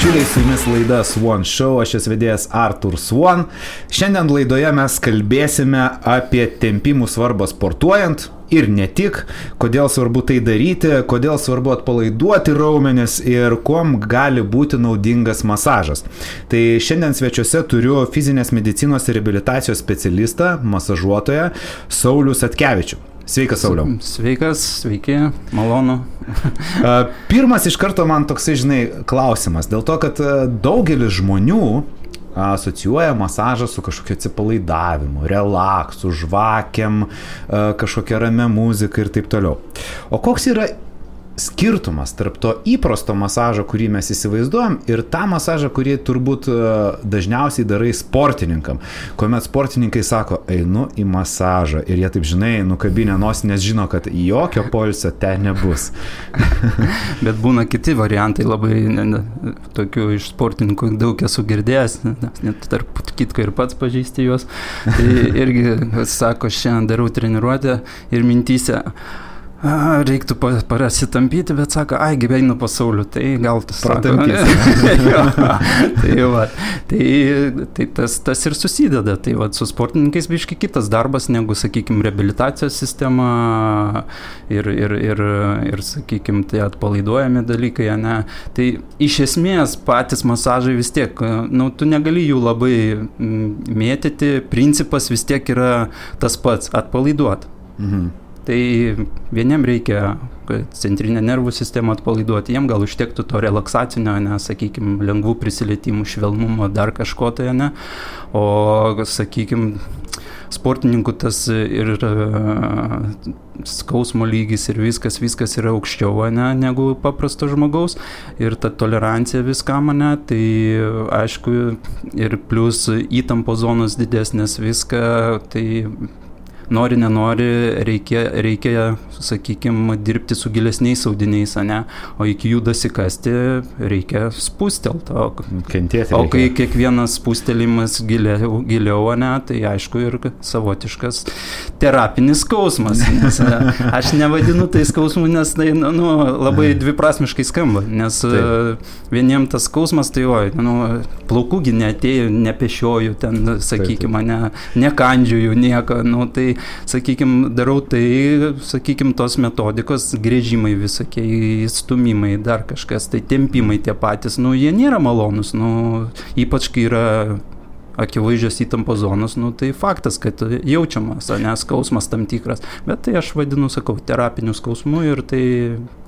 bičiuliai, su jumis laida Swan Show, aš esu vedėjas Artur Swan. Šiandien laidoje mes kalbėsime apie tempimų svarbą sportuojant ir ne tik, kodėl svarbu tai daryti, kodėl svarbu atpalaiduoti raumenis ir kuom gali būti naudingas masažas. Tai šiandien svečiuose turiu fizinės medicinos ir reabilitacijos specialistą, masažuotoją Saulių Satkevičių. Sveikas, Sauliau. Sveikas, sveiki, malonu. Pirmas iš karto man toksai, klausimas. Dėl to, kad daugelis žmonių asocijuoja masažą su kažkokiu atsipalaidavimu, relaksu, žvakėm, kažkokia ramia muzika ir taip toliau. O koks yra skirtumas tarp to įprasto masažo, kurį mes įsivaizduojam, ir tą masažą, kurį turbūt dažniausiai darai sportininkam, kuomet sportininkai sako, einu į masažą ir jie taip nukabinę nosį, nes žino, kad jokio poilsio ten nebus. Bet būna kiti variantai, labai tokių iš sportininkų daug esu girdėjęs, net tarp kitko ir pats pažįsti juos. Tai irgi sako, šiandien darau treniruotę ir mintyse, reiktų parasitampyti, bet sako, gyvenu pas Saulių, tai gal tas tai tas ir susideda. Tai su sportininkais biški kitas darbas negu, sakykime, reabilitacijos sistema ir sakykime, tai atpalaiduojami dalykai, ne. Tai iš esmės patys masažai vis tiek, tu negali jų labai mėtyti, principas vis tiek yra tas pats, atpalaiduoti. Mhm. Tai vieniem reikia centrinę nervų sistemą atpalaiduoti, jiem gal užtektų to relaksacinio, sakykime, lengvų prisilietimų, švelnumo, dar kažko tai, o, sakykime, sportininkų tas ir skausmo lygis ir viskas yra aukščiau, negu paprasto žmogaus, ir ta tolerancija viskam, tai aišku, ir plus įtampo zonos didesnės viską, tai nori, nenori, reikia, sakykime, dirbti su gilesniais audiniais, o iki jų dasikasti reikia spustelti. O kai kiekvienas spustelimas giliau, tai aišku ir savotiškas terapinis skausmas. Nes aš nevadinu tai skausmu, nes tai labai dviprasmiškai skamba, nes vieniem tas skausmas, tai plaukųgi neatėjo, nepešioju ten, sakykime, nekandžiuju nieko, tai sakykime, darau tai, sakykime, tos metodikos, grėžimai visokie, stumimai, dar kažkas, tai tempimai tie patys, jie nėra malonus, ypač kai yra akivaizdžios įtampos zonos, tai faktas, kad jaučiamas, skausmas tam tikras, bet tai aš vadinu, sakau, terapiniu skausmu ir tai...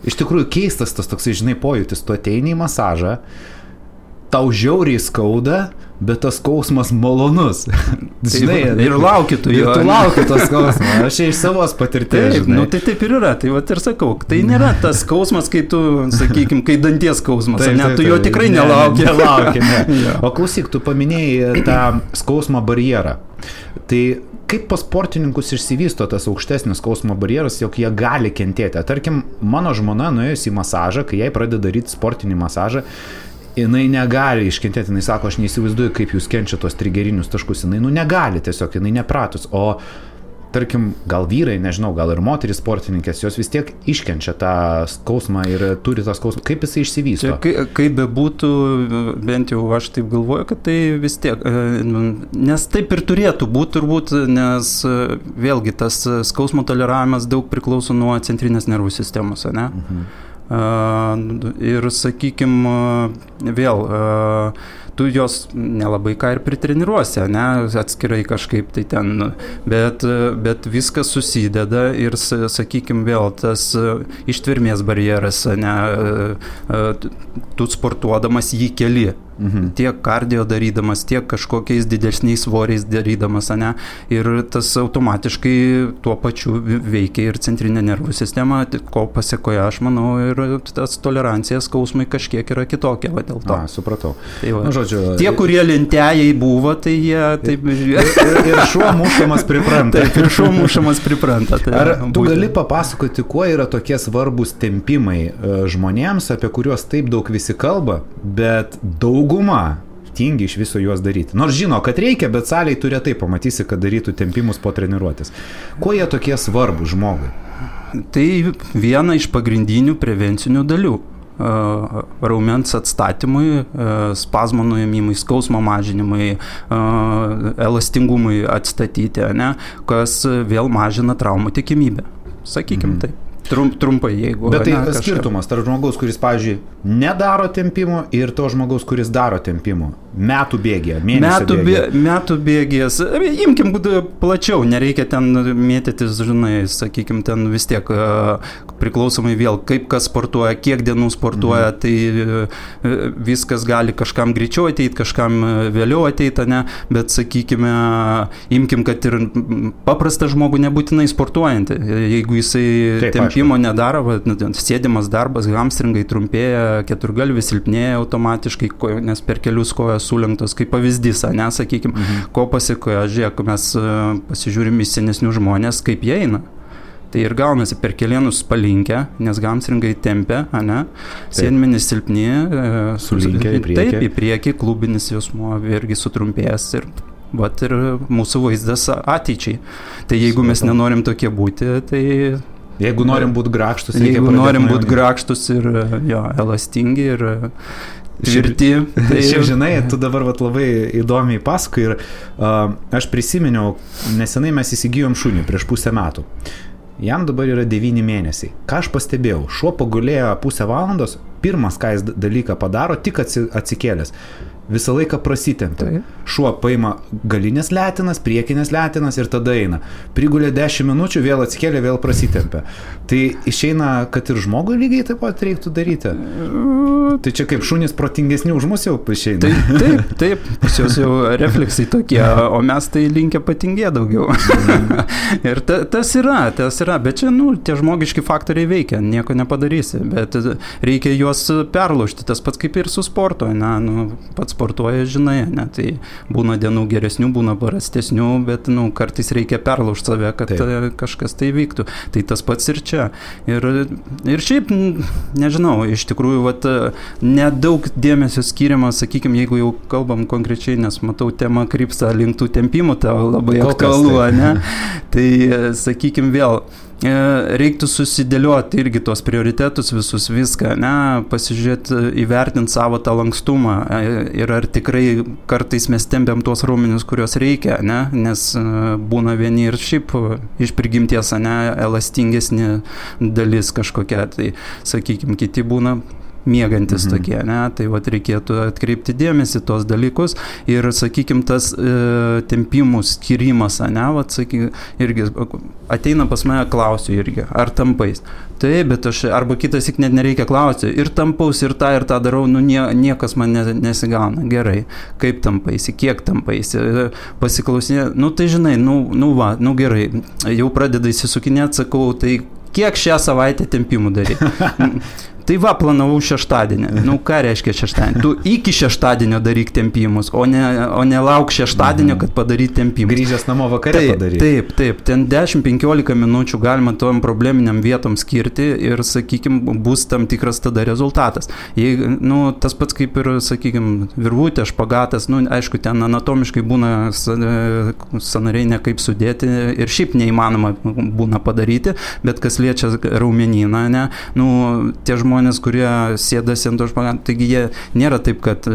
Iš tikrųjų keistas tas toksai, pojūtis, tu ateini į masažą, tau žiauriai skauda, bet tas skausmas malonus. Ir lauki tu jo. Ir tu lauki tos skausmą. Aš iš savos patirties. Tai taip ir yra. Tai ir sakau, tai nėra tas skausmas, kai tu, sakykime, kai danties skausmas. Tu jo tikrai nelauki. O klausyk, tu paminėjai tą skausmo barjerą. Tai kaip pas sportininkus išsivysto tas aukštesnis skausmo barjeras, jog jie gali kentėti? Tarkim, mano žmona nuėjus į masažą, kai jai pradeda daryti sportinį masažą, jinai negali iškentėti, jinai sako, aš neįsivaizduoju, kaip jūs kenčia tos trigerinius taškus, jinai negali tiesiog, jinai nepratus, o tarkim, gal vyrai, nežinau, gal ir moterys sportininkės, jos vis tiek iškenčia tą skausmą ir turi tą skausmą, kaip jisai išsivysto? Kaip bebūtų, bent jau aš taip galvoju, kad tai vis tiek, nes taip ir turėtų būti turbūt, nes vėlgi tas skausmo toleravimas daug priklauso nuo centrinės nervų sistemos, ir, sakykime, vėl, tu jos nelabai ką ir pritreniruosi, atskirai kažkaip tai ten, bet viskas susideda ir, sakykime, vėl tas ištvermės barjeras, tu sportuodamas jį keli. Tiek kardio darydamas, tiek kažkokiais didesniais svoriais darydamas, ir tas automatiškai tuo pačiu veikia ir centrinė nervų sistema, ko pasiekoje, aš manau, ir tas tolerancija skausmai kažkiek yra kitokia, dėl to. Supratau. Tai žodžiu, tie, kurie lentėjai buvo, tai jie taip... Ir šuo mušamas pripranta. Taip, ir šuo mušamas pripranta. Ar tu gali papasakoti, kuo yra tokie svarbus tempimai žmonėms, apie kuriuos taip daug visi kalba, bet dauguma tingi iš viso juos daryti. Nors žino, kad reikia, bet saliai tu retai pamatysi, kad darytų tempimus po treniruotės. Kuo jie tokie svarbus žmogui? Tai viena iš pagrindinių prevencinių dalių. raumens atstatymui, spazmo nuėmimui, skausmo mažinimui, elastingumui atstatyti, ne, kas vėl mažina traumų tikimybę. Sakykim taip. Trumpai, jeigu... Bet tai skirtumas tarp žmogaus, kuris, pavyzdžiui, nedaro tempimo ir to žmogaus, kuris daro tempimo. Metų bėgėje, mėnesio bėgėje. Metų bėgės. Imkim plačiau, nereikia ten mėtytis, žinai, sakykim, ten vis tiek priklausomai vėl, kaip kas sportuoja, kiek dienų sportuoja, tai viskas gali kažkam greičiau ateiti, kažkam vėliau ateiti, ne, bet sakykime, imkim, kad ir paprastą žmogų nebūtinai sportuojantį, jeigu jisai tempimo nedaro, sėdimas darbas, hamstringai trumpėja, keturgalvis silpnėja automatiškai, nes per kelius kojas sulenktos, kaip pavyzdys, ne, sakykim, ko pasikoja, žiūrėk, mes pasižiūrim į senesnių žmonės, kaip jie eina. Tai ir gaunasi per kelienus palinkę, nes hamstringai tempia, ne, sėdmenys silpni, sulinkę į priekį. Taip, į priekį, klubinis jausmuo irgi sutrumpėjęs ir mūsų vaizdas ateičiai. Tai jeigu mes nenorim tokie būti, tai... Jeigu norim būti grakštus, jeigu norim būti grakštus ir elastingi ir tvirti. Šiaip žinai, tu dabar labai įdomiai pasakoji ir aš prisiminiau, nesenai mes įsigijom šunį prieš pusę metų. Jam dabar yra 9 mėnesiai. Ką aš pastebėjau, šuo pagulėjo pusę valandos, pirmas, ką jis dalyką padaro, tik atsikėlęs. Visą laiką prasitempia. Šuo paima galinės letinas, priekinės letinas ir tada eina. Prigulė 10 minučių, vėl atsikėlė, vėl prasitempia. Tai išeina, kad ir žmogui lygiai taip pat reiktų daryti. Tai čia kaip šunys protingesni už mus jau išeina. Taip, pas jos jau refleksai tokie, o mes tai linkę patingė daugiau. Ir tas yra, bet čia, tie žmogiški faktoriai veikia, nieko nepadarysi, bet reikia juos perlaužti, tas pats kaip ir su sporto, pats sportuoja, žinai, ne, tai būna dienų geresnių, būna prastesnių, bet, kartais reikia perlaužti save, kad kažkas tai vyktų. Tai tas pats ir čia. Ir šiaip, nežinau, iš tikrųjų, nedaug dėmesio skiriama, sakykime, jeigu jau kalbam konkrečiai, nes matau, tema krypsta link tų tempimų, tau labai aktualu, ne? Tai, sakykime, vėl, reiktų susidėlioti irgi tos prioritetus visus, viską, ne, pasižiūrėti, įvertinti savo tą lankstumą ir ar tikrai kartais mes tempiam tuos raumenis, kurios reikia, ne, nes būna vieni ir šiaip iš prigimties, ne, elastingesnė dalis kažkokia, tai sakykime, kiti būna miegantis tokie, ne, tai reikėtų atkreipti dėmesį tos dalykus ir, sakykime, tas tempimų skirimas, ne, irgi ateina pas mane, klausiu irgi, ar tampais. Taip, bet aš, arba kitas net nereikia klausti, ir tampaus, ir tą darau, niekas man nesigauna. Gerai, kaip tampaisi, kiek tampaisi, pasiklausinė, tai žinai, gerai, jau pradeda įsisukinėti, sakau, tai kiek šią savaitę tempimų daryti? Tai planavau šeštadienį. Ką reiškia šeštadienį? Tu iki šeštadienio daryk tempimus, o ne lauk šeštadienio, kad padaryt tempimus. Grįžęs namo vakare padaryt. Taip. Ten 10-15 minučių galima tom probleminiam vietom skirti ir, sakykime, bus tam tikras tada rezultatas. Tas pats kaip ir, sakykime, virvutė, špagatas, aišku, ten anatomiškai būna sąnariai nekaip sudėti ir šiaip neįmanoma būna padaryti, bet kas liečia raumenyną, ne, tie žmonės, kurie sėdasi ant to špagato, taigi jie nėra taip, kad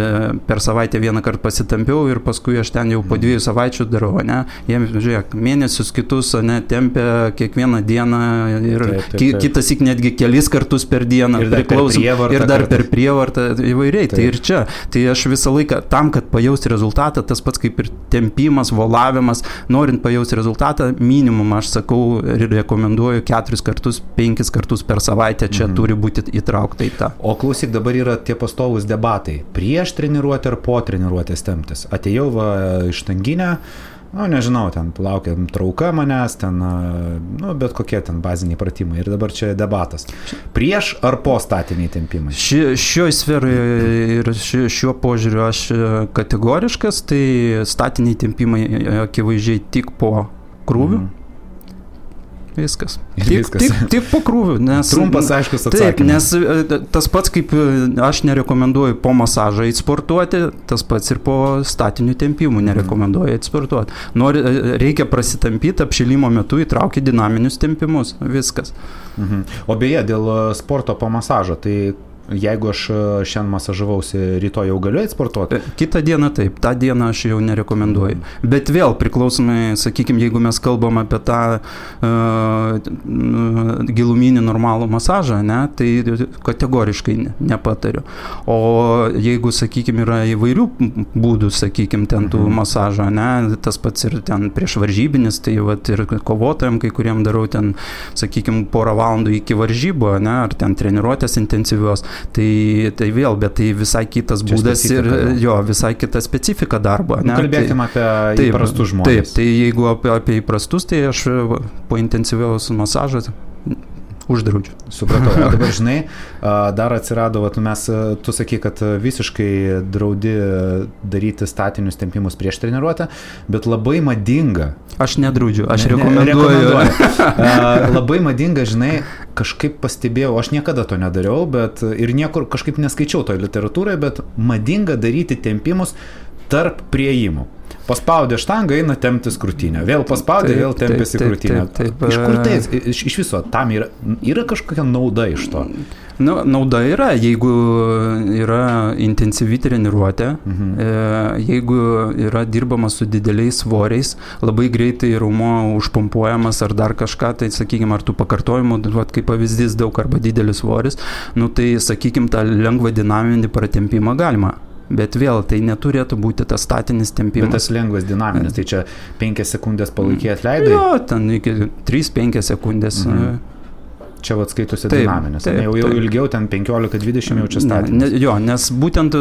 per savaitę vieną kartą pasitampiau ir paskui aš ten jau po 2 savaičių darau, ne? Jie, žiūrėk, mėnesius kitus, ne, tempia kiekvieną dieną ir kitas ik netgi kelis kartus per dieną, ir dar per prievartą įvairiai. Tai ir čia. Tai aš visą laiką tam, kad pajausti rezultatą, tas pats kaip ir tempimas, volavimas, norint pajausti rezultatą, minimum aš sakau ir rekomenduoju 4 kartus, 5 kartus per savaitę čia turi būti įtraukta į tą. O klausyk, dabar yra tie pastovūs debatai. Prieš treniruotę ar po treniruotės temptis. Atėjau iš tanginę, nežinau, ten laukiam trauka manęs, ten, bet kokie ten baziniai pratimai. Ir dabar čia debatas. Prieš ar po statiniai tempimai? Šioje sferoje ir šiuo požiūriu aš kategoriškas, tai statiniai tempimai akivaizdžiai tik po krūvių. Viskas. Tik po krūvių. Trumpas, aiškus atsakymas. Taip, nes tas pats, kaip aš nerekomenduoju po masažą sportuoti, tas pats ir po statinių tempimų nerekomenduoju sportuoti. Reikia prasitampyti, apšilimo metu įtraukti dinaminius tempimus. Viskas. O beje, dėl sporto po masažo, tai jeigu aš šiandien masažavausi, rytoj jau galiu sportuoti? Kitą dieną taip, tą dieną aš jau nerekomenduoju. Bet vėl priklausomai, sakykime, jeigu mes kalbam apie tą giluminį normalų masažą, ne, tai kategoriškai nepatariu. O jeigu, sakykime, yra įvairių būdų, sakykime, ten tų masažo, ne, tas pats ir ten prieš varžybinis, tai vat, ir kovotojam, kai kuriem darau ten, sakykime, porą valandų iki varžybų, ne, ar ten treniruotės intensyvios, tai vėl, bet tai visai kitas būdas ir jo, visai kita specifika darbo. Ne? Kalbėkime apie įprastus žmonės. Taip, tai jeigu apie įprastus, tai aš po intensyviaus masažo uždraudžiu. Supratau. O dabar, žinai, dar atsirado, tu sakai, kad visiškai draudi daryti statinius tempimus prieš treniruotę, bet labai madinga. Aš nedraudžiu, aš rekomenduoju. Labai madinga, žinai, kažkaip pastebėjau, aš niekada to nedariau, bet ir niekur kažkaip neskaičiau toje literatūroje, bet madinga daryti tempimus tarp priėjimų. Paspaudė štangą, eina temptis krūtinę. Vėl paspaudė, vėl tempėsi krūtinę. Iš kur tai? Iš viso, tam yra kažkokia nauda iš to? Nu, nauda yra, jeigu yra intensyvi treniruotė, jeigu yra dirbama su dideliais svoriais, labai greitai raumo užpumpuojamas ar dar kažką, tai sakykime, ar tų pakartojimų, kaip pavyzdys daug arba didelis svoris, nu tai sakykime, tą lengvą dinaminį pratempimą galima. Bet vėl, tai neturėtų būti tas statinis tempimas. Bet tas lengvas dinaminis, tai čia 5 sekundės palaikiai atleidai? Jo, ten iki 3-5 sekundės. Čia skaitosi dinaminis. Jau ilgiau, ten 15-20 jau čia statinis. Jo, nes būtent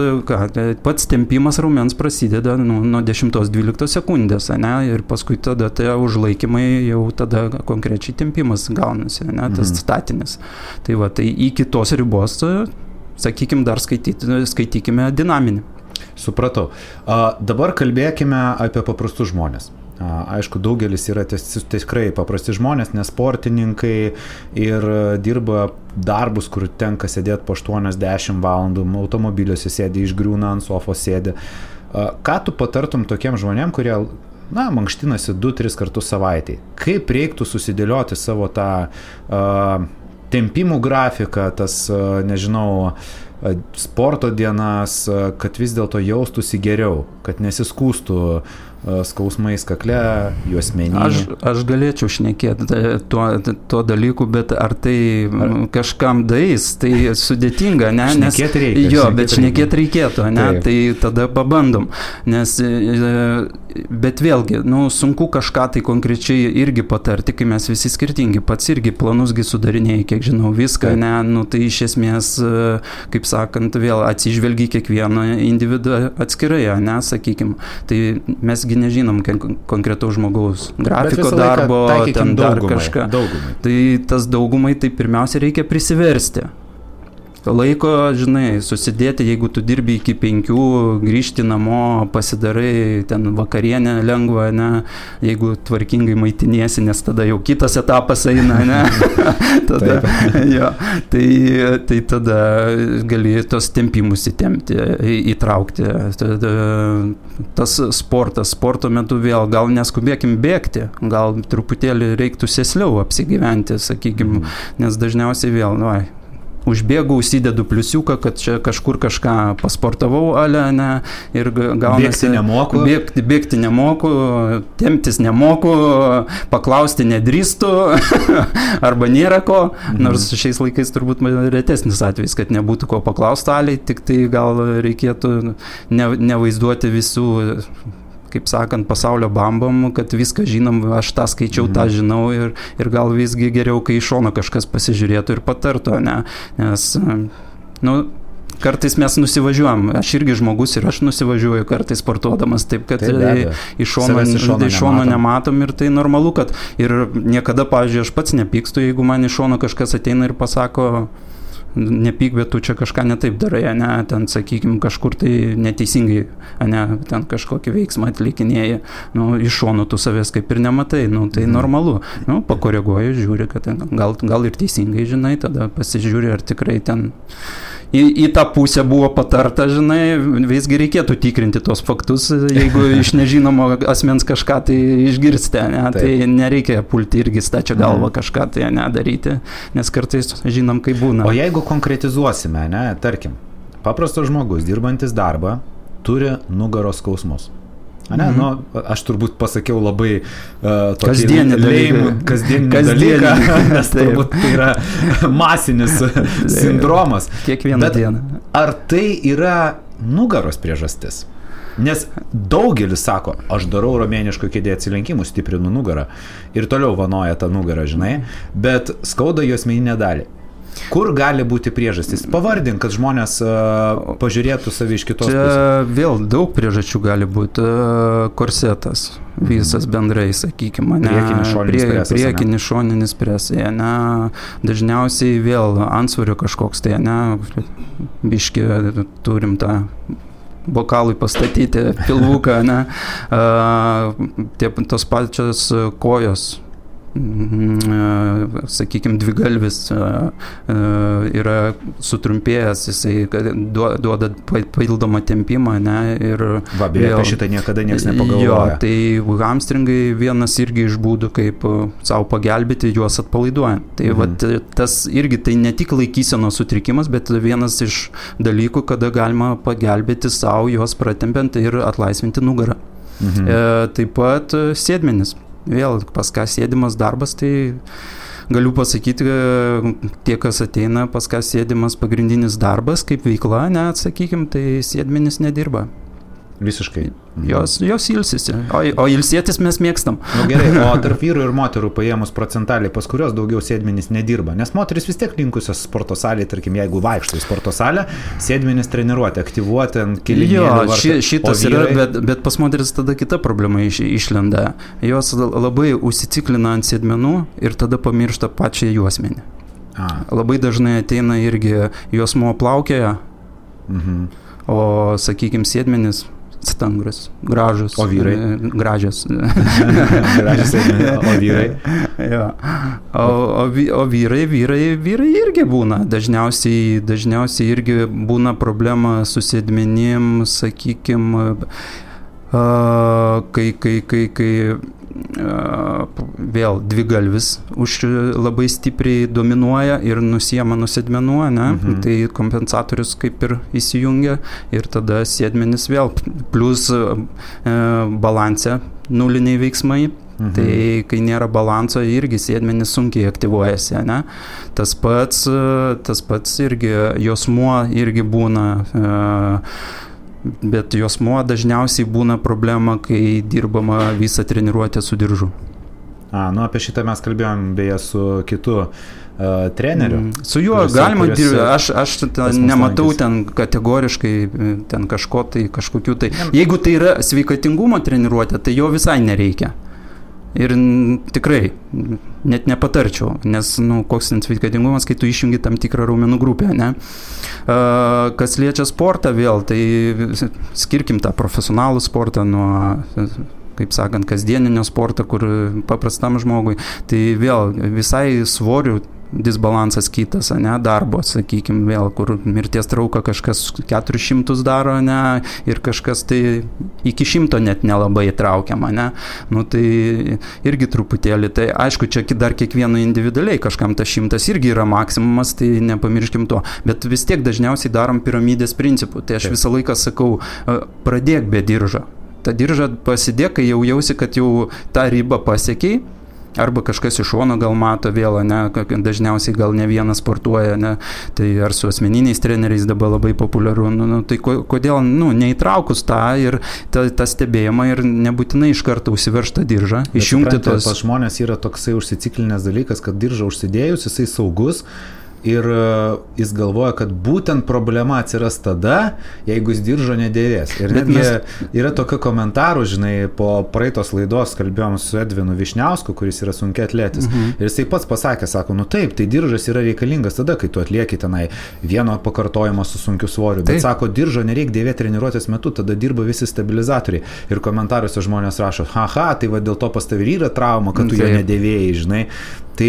pats tempimas raumens prasideda nuo 10-12 sekundės, ne, ir paskui tada tai užlaikymai jau tada konkrečiai tempimas gaunasi, ne, tas statinis. Tai va, tai iki tos ribos, sakykime, dar skaitykime dinaminį. Supratau. Dabar kalbėkime apie paprastus žmonės. Aišku, daugelis yra tikrai paprasti žmonės, nes sportininkai ir dirba darbus, kur tenka sėdėti po 8-10 valandų, automobiliuose sėdi, išgriūna ant sofos sėdi. Ką tu patartum tokiem žmonėm, kurie mankštinasi 2-3 kartus savaitėj? Kaip reiktų susidėlioti savo tą tempimų grafiką, tas, nežinau, sporto dienas, kad vis dėlto jaustųsi geriau, kad nesiskūstų skausmais kakle, juosmenį. Aš galėčiau šnekėti tuo dalyku, bet ar tai kažkam dais, tai sudėtinga, ne? Šnekėti reikia. Jo, bet šnekėti reikėtų, ne? Taip. Tai tada pabandom. Nes, bet vėlgi, sunku kažką tai konkrečiai irgi patarti, kai mes visi skirtingi. Pats irgi planusgi sudarinėjai, kiek žinau, viską, ne? Tai iš esmės, kaip sakant, vėl atsižvelgi kiekvieną individą atskirai, ne, sakykim. Tai mes nežinom konkretaus žmogaus grafiko darbo, ten dar kažką. Daugumai. Tai tas daugumai, tai pirmiausia reikia prisiversti. Laiko, žinai, susidėti, jeigu tu dirbi iki 5, grįžti namo, pasidarai ten vakarienę lengvą, ne, jeigu tvarkingai maitiniesi, nes tada jau kitas etapas eina, ne, tada, jo, tai tada gali tos tempimus įtempti, įtraukti. Tada, tas sporto metu vėl, gal neskubėkim bėgti, gal truputėlį reiktų sėsliau apsigyventi, sakykim, nes dažniausiai vėl, užbėgu, užsidedu pliusiuką, kad čia kažkur kažką pasportavau, ne, ir gaunasi... Bėgti nemoku, temptis nemoku, paklausti nedrįstu, arba nėra ko, nors šiais laikais turbūt retesnis atvejis, kad nebūtų ko paklausti, tik tai gal reikėtų nevaizduoti visų, kaip sakant, pasaulio bambom, kad viską žinom, aš tą skaičiau, tą žinau ir gal visgi geriau, kai iš šono kažkas pasižiūrėtų ir patartų, ne? Nes, kartais mes nusivažiuojam, aš irgi žmogus ir aš nusivažiuoju kartais sportuodamas, taip kad iš šono nematom ir tai normalu, kad ir niekada, pavyzdžiui, aš pats nepykstu, jeigu man iš šono kažkas ateina ir pasako, nepyk, bet tu čia kažką netaip darai, ne, ten, sakykime, kažkur tai neteisingai, ne, ten kažkokį veiksmą atlikinėji, iš šono tu savęs kaip ir nematai, tai normalu, pakoreguoji, žiūri, kad gal ir teisingai žinai, tada pasižiūri, ar tikrai ten į tą pusę buvo patarta, žinai, visgi reikėtų tikrinti tos faktus, jeigu iš nežinomo asmens kažką tai išgirsti, ne, tai nereikia pulti irgi stačia galva kažką tai daryti, nes kartais žinom, kaip būna. O jeigu konkretizuosime, ne, tarkim, paprastas žmogus, dirbantis darbą, turi nugaros skausmus. Ne, nu, aš turbūt pasakiau labai kasdienį dalyką, nes turbūt tai yra masinis sindromas. Kiekvieną dieną. Ar tai yra nugaros priežastis? Nes daugelis sako, aš darau romėniško kėdė atsilenkimų, stiprinu nugarą ir toliau vanoja tą nugarą, žinai, bet skauda juosmeninę dalį. Kur gali būti priežastys? Pavardink, kad žmonės pažiūrėtų savi iš kitos pusės. Vėl daug priežasčių gali būti. Korsetas, visas bendrai, sakykime. Priekinis šoninis presai. Dažniausiai vėl antsvorio kažkoks, tai biški turim tą bokalui pastatyti pilvuką, tos pačios kojos. Sakykime, dvigalvis yra sutrumpėjęs, jisai duoda papildomą tempimą, ir beje, apie šitą niekada niekas nepagalvoja. Tai hamstringai vienas irgi iš būdų, kaip savo pagelbėti, juos atpalaiduojant. Tai vat, tas irgi tai ne tik laikysenos sutrikimas, bet vienas iš dalykų, kada galima pagelbėti savo, juos pratempiant ir atlaisvinti nugarą. Taip pat sėdmenis. Vėl pas ką sėdimas darbas, tai galiu pasakyti, tie, kas ateina, pas ką sėdimas pagrindinis darbas, kaip veikla, sakykime, tai sėdmenis nedirba. Visiškai. Jos ilsisi, o ilsėtis mes mėgstam. Gerai, o tarp vyrų ir moterų paėmus procentaliai, pas kurios daugiau sėdmenys nedirba, nes moteris vis tiek linkusios sporto salėje, tarkim, jeigu vaikšto į sporto salę, sėdmenys treniruoti, aktyvuoti ant kilimėlio. Šitas yra, bet pas moteris tada kita problema išlenda. Jos labai užsiciklina ant sėdmenų ir tada pamiršta pačią juosmenį. Labai dažnai ateina irgi juosmuo plaukioja, o, sakykime, sėdmenis stangras, gražus. O vyrai? Gražios. Gražios sėdmenys. O vyrai? Jo. O vyrai irgi būna. Dažniausiai irgi būna problema su sėdmenim, sakykime, kai vėl dvigalvis labai stipriai dominuoja ir nusiema nuo sėdmenų, tai kompensatorius kaip ir įsijungia ir tada sėdmenis vėl plus balanse nuliniai veiksmai. Tai kai nėra balanso, irgi sėdmenis sunkiai aktyvuojasi, Tas pats irgi juosmuo irgi būna, bet juosmuo dažniausiai būna problema, kai dirbama visą treniruotę su diržu. Apie šitą mes kalbėjom beje su kitu treneriu. Su juo galima dirbti, aš nematau ten kategoriškai ten kažkokių tai. Jeigu tai yra sveikatingumo treniruotė, tai jo visai nereikia. Ir tikrai net nepatarčiau, nes koks sveikatingumas, kai tu išjungi tam tikrą raumenų grupę, Kas liečia sportą vėl, tai skirkim tą profesionalų sportą nuo, kaip sakant, kasdieninio sporto, kur paprastam žmogui, tai vėl visai svorių disbalansas kitas, darbo, sakykime, vėl, kur mirties trauką kažkas 400 daro, ir kažkas tai iki 100 net nelabai traukiama, tai irgi truputėlį, tai aišku, čia dar kiekvieno individualiai, kažkam tas 100 irgi yra maksimumas, tai nepamirškim to, bet vis tiek dažniausiai darom piramidės principų, tai aš visą laiką sakau, pradėk be diržo, tą diržą pasidėk, kai jau jausi, kad jau tą ribą pasiekiai, arba kažkas iš šono gal mato vėl, dažniausiai gal ne vienas sportuoja, tai ar su asmeniniais treneriais dabar labai populiaru, tai kodėl, neįtraukus tą ir tą stebėjimą ir nebūtinai iš karto užsiverš tą diržą, išjungti tos. Pas žmonės yra toksai užsiciklinės dalykas, kad diržą užsidėjus, jisai saugus, ir jis galvoja, kad būtent problema atsiras tada, jeigu jis diržo nedėvės. Ir netgi yra tokio komentarų, žinai, po praeitos laidos kalbėjom su Edvinu Višniausku, kuris yra sunkiaatletis. Ir jisai pats pasakė, sako, taip, tai diržas yra reikalingas tada, kai tu atlieki tenai vieno pakartojimo su sunkiu svoriu. Bet sako, diržo nereikia dėvėti treniruotės metu, tada dirba visi stabilizatoriai. Ir komentaruose žmonės rašo, tai va dėl to pas tavai yra trauma, kad tu jo nedėvėjai, žinai. Tai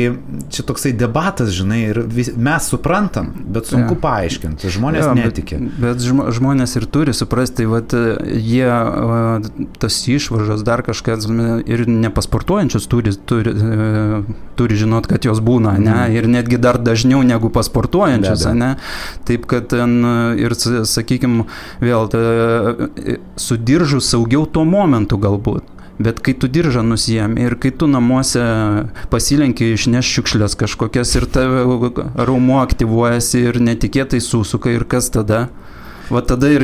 čia toksai debatas, žinai, ir mes suprantam, bet sunku paaiškinti, žmonės netiki. Bet žmonės ir turi suprasti, vat, jie tas išvaržas dar kažkas ir nepasportuojančius turi žinot, kad jos būna, ne? Ir netgi dar dažniau negu pasportuojančius, ne? Taip, kad ten ir, sakykime, vėl su diržu saugiau tuo momentu galbūt. Bet kai tu diržą nusijėmi ir kai tu namuose pasilenki išneš šiukšlės kažkokias ir tave raumuo aktyvuojasi ir netikėtai susuka ir kas tada? Va tada ir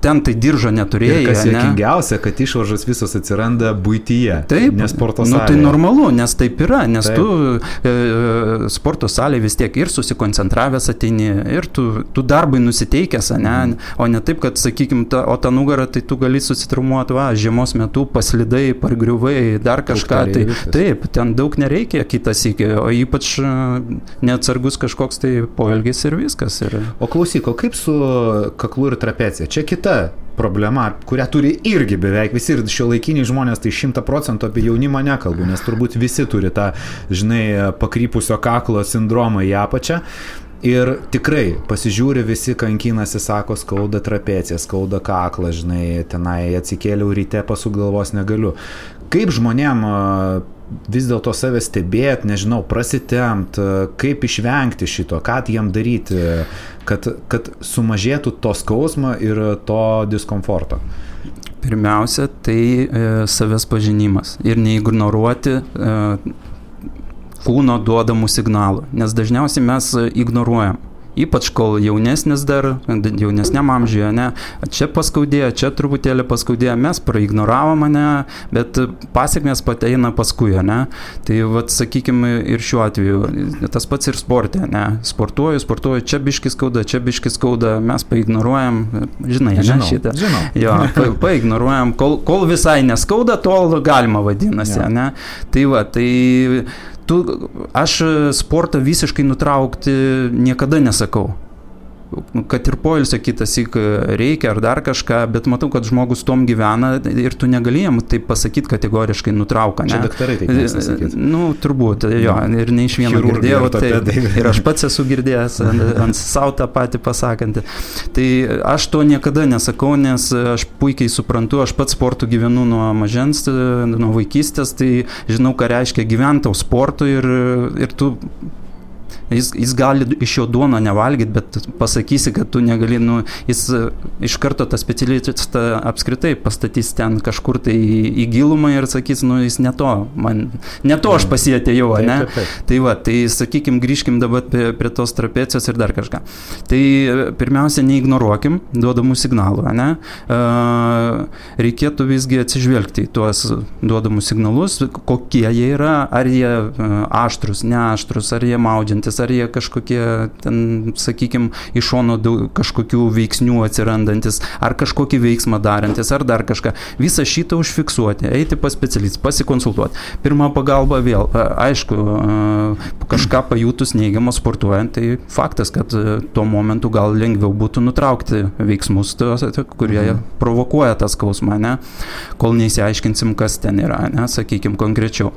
ten tai diržo neturėjai. Ir kas juokingiausia, kad išvaržos visos atsiranda buityje, taip, ne sporto salėje. Tai normalu, nes taip yra, nes taip. Tu sporto salėje vis tiek ir susikoncentravęs ateini, ir tu darbai nusiteikęs, ne? O ne taip, kad, sakykime, o tą nugarą, tai tu gali susitraumuoti, žiemos metu paslidai, pargriuvai, dar kažką. Tai, taip, ten daug nereikia kitas iki, o ypač neatsargus kažkoks tai poelgis ir viskas. O klausyk, o kaip su kaklu ir trapecija? Čia kita problema, kurią turi irgi beveik visi ir šiuolaikiniai žmonės, tai 100% apie jaunimą nekalbu, nes turbūt visi turi tą, žinai, pakrypusio kaklo sindromą į apačią. Ir tikrai pasižiūri, visi kankinasi, sako, skauda trapeciją, skauda kaklą, žinai, tenai atsikėliau ryte, pasuk galvos negaliu. Kaip žmonėm vis dėlto save stebėti, nežinau, prasitempt, kaip išvengti šito, ką jiem daryti, kad sumažėtų to skausmo ir to diskomforto? Pirmiausia, tai savęs pažinimas ir neignoruoti kūno duodamų signalų, nes dažniausiai mes ignoruojam. Ypač kol jaunesnis dar, jaunesniam amžiuje, ne, čia paskaudėjo, čia truputėlį paskaudėjo, mes praignoravom, ne, bet pasiekmės pateina paskui, ne. Tai, vat, sakykime, ir šiuo atveju, tas pats ir sporte, ne, sportuoju, čia biškis skauda, mes paignoruojam, žinai, žinau, ne, šitą. Žinau. Jo, paignoruojam, kol visai neskauda, tol galima vadinasi, ne. Tai va, aš sportą visiškai nutraukti niekada nesakau. Kad ir poilsio kitassyk reikia ar dar kažką, bet matau, kad žmogus tom gyvena ir tu negalėjom taip pasakyti kategoriškai nutrauką. Čia daktarai taip nesakyti. Nu, turbūt, jo, ir ne iš vieno girdėjau, ir aš pats esu girdėjęs ant savo tą patį pasakantį. Tai aš to niekada nesakau, nes aš puikiai suprantu, aš pats sportu gyvenu nuo mažens, nuo vaikystės, tai žinau, ką reiškia gyventi sportu ir tu Jis gali iš jo duono nevalgyti, bet pasakysi, kad tu negali, jis iš karto tą specialistą apskritai pastatys ten kažkur tai į gilumą ir sakys, jis ne to aš pasietėjau, ne? Tai va, tai sakykim, grįžkim dabar prie tos trapecijos ir dar kažką. Tai pirmiausia, neignoruokim duodamų signalų, ne? Reikėtų visgi atsižvelgti į tuos duodamus signalus, kokie jie yra, ar jie aštrus, neaštrus, ar jie maudžiantis, ar jie kažkokie, ten, sakykime, iš šono kažkokių veiksnių atsirandantis, ar kažkokį veiksmą darantis, ar dar kažką. Visą šitą užfiksuoti, eiti pas specialistą, pasikonsultuoti. Pirma pagalba vėl, aišku, kažką pajutus neigiamą sportuojant, tai faktas, kad tuo momentu gal lengviau būtų nutraukti veiksmus, kurie provokuoja tą skausmą, ne? Kol neįsiaiškinsim, kas ten yra, ne? Sakykime, konkrečiau.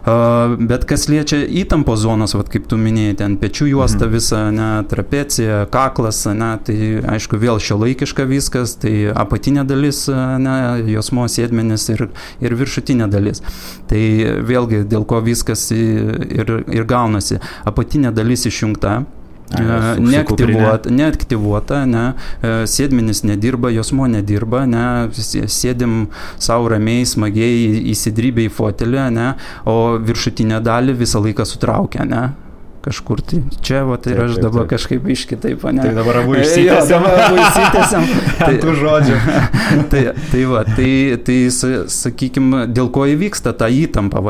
Bet kas liečia įtampos zonas, kaip tu minėjai, ten pečių juosta visa, ne, trapecija, kaklas, ne, tai aišku vėl šiuolaikiška viskas, tai apatinė dalis, ne, juosmuo, sėdmenis ir viršutinė dalis. Tai vėlgi dėl ko viskas ir gaunasi. Apatinė dalis išjungta, neaktyvuota, ne, sėdmenis nedirba, juosmuo nedirba, ne, sėdim savo ramiai, smagiai įsidrybę į fotelį, ne, o viršutinę dalį visą laiką sutraukia, ne. Kažkur tai čia, ir aš dabar kažkaip iškitaip, ne? Tai dabar abu išsitęsiam. Tų žodžių. Tai sakykime, dėl ko įvyksta ta įtampa,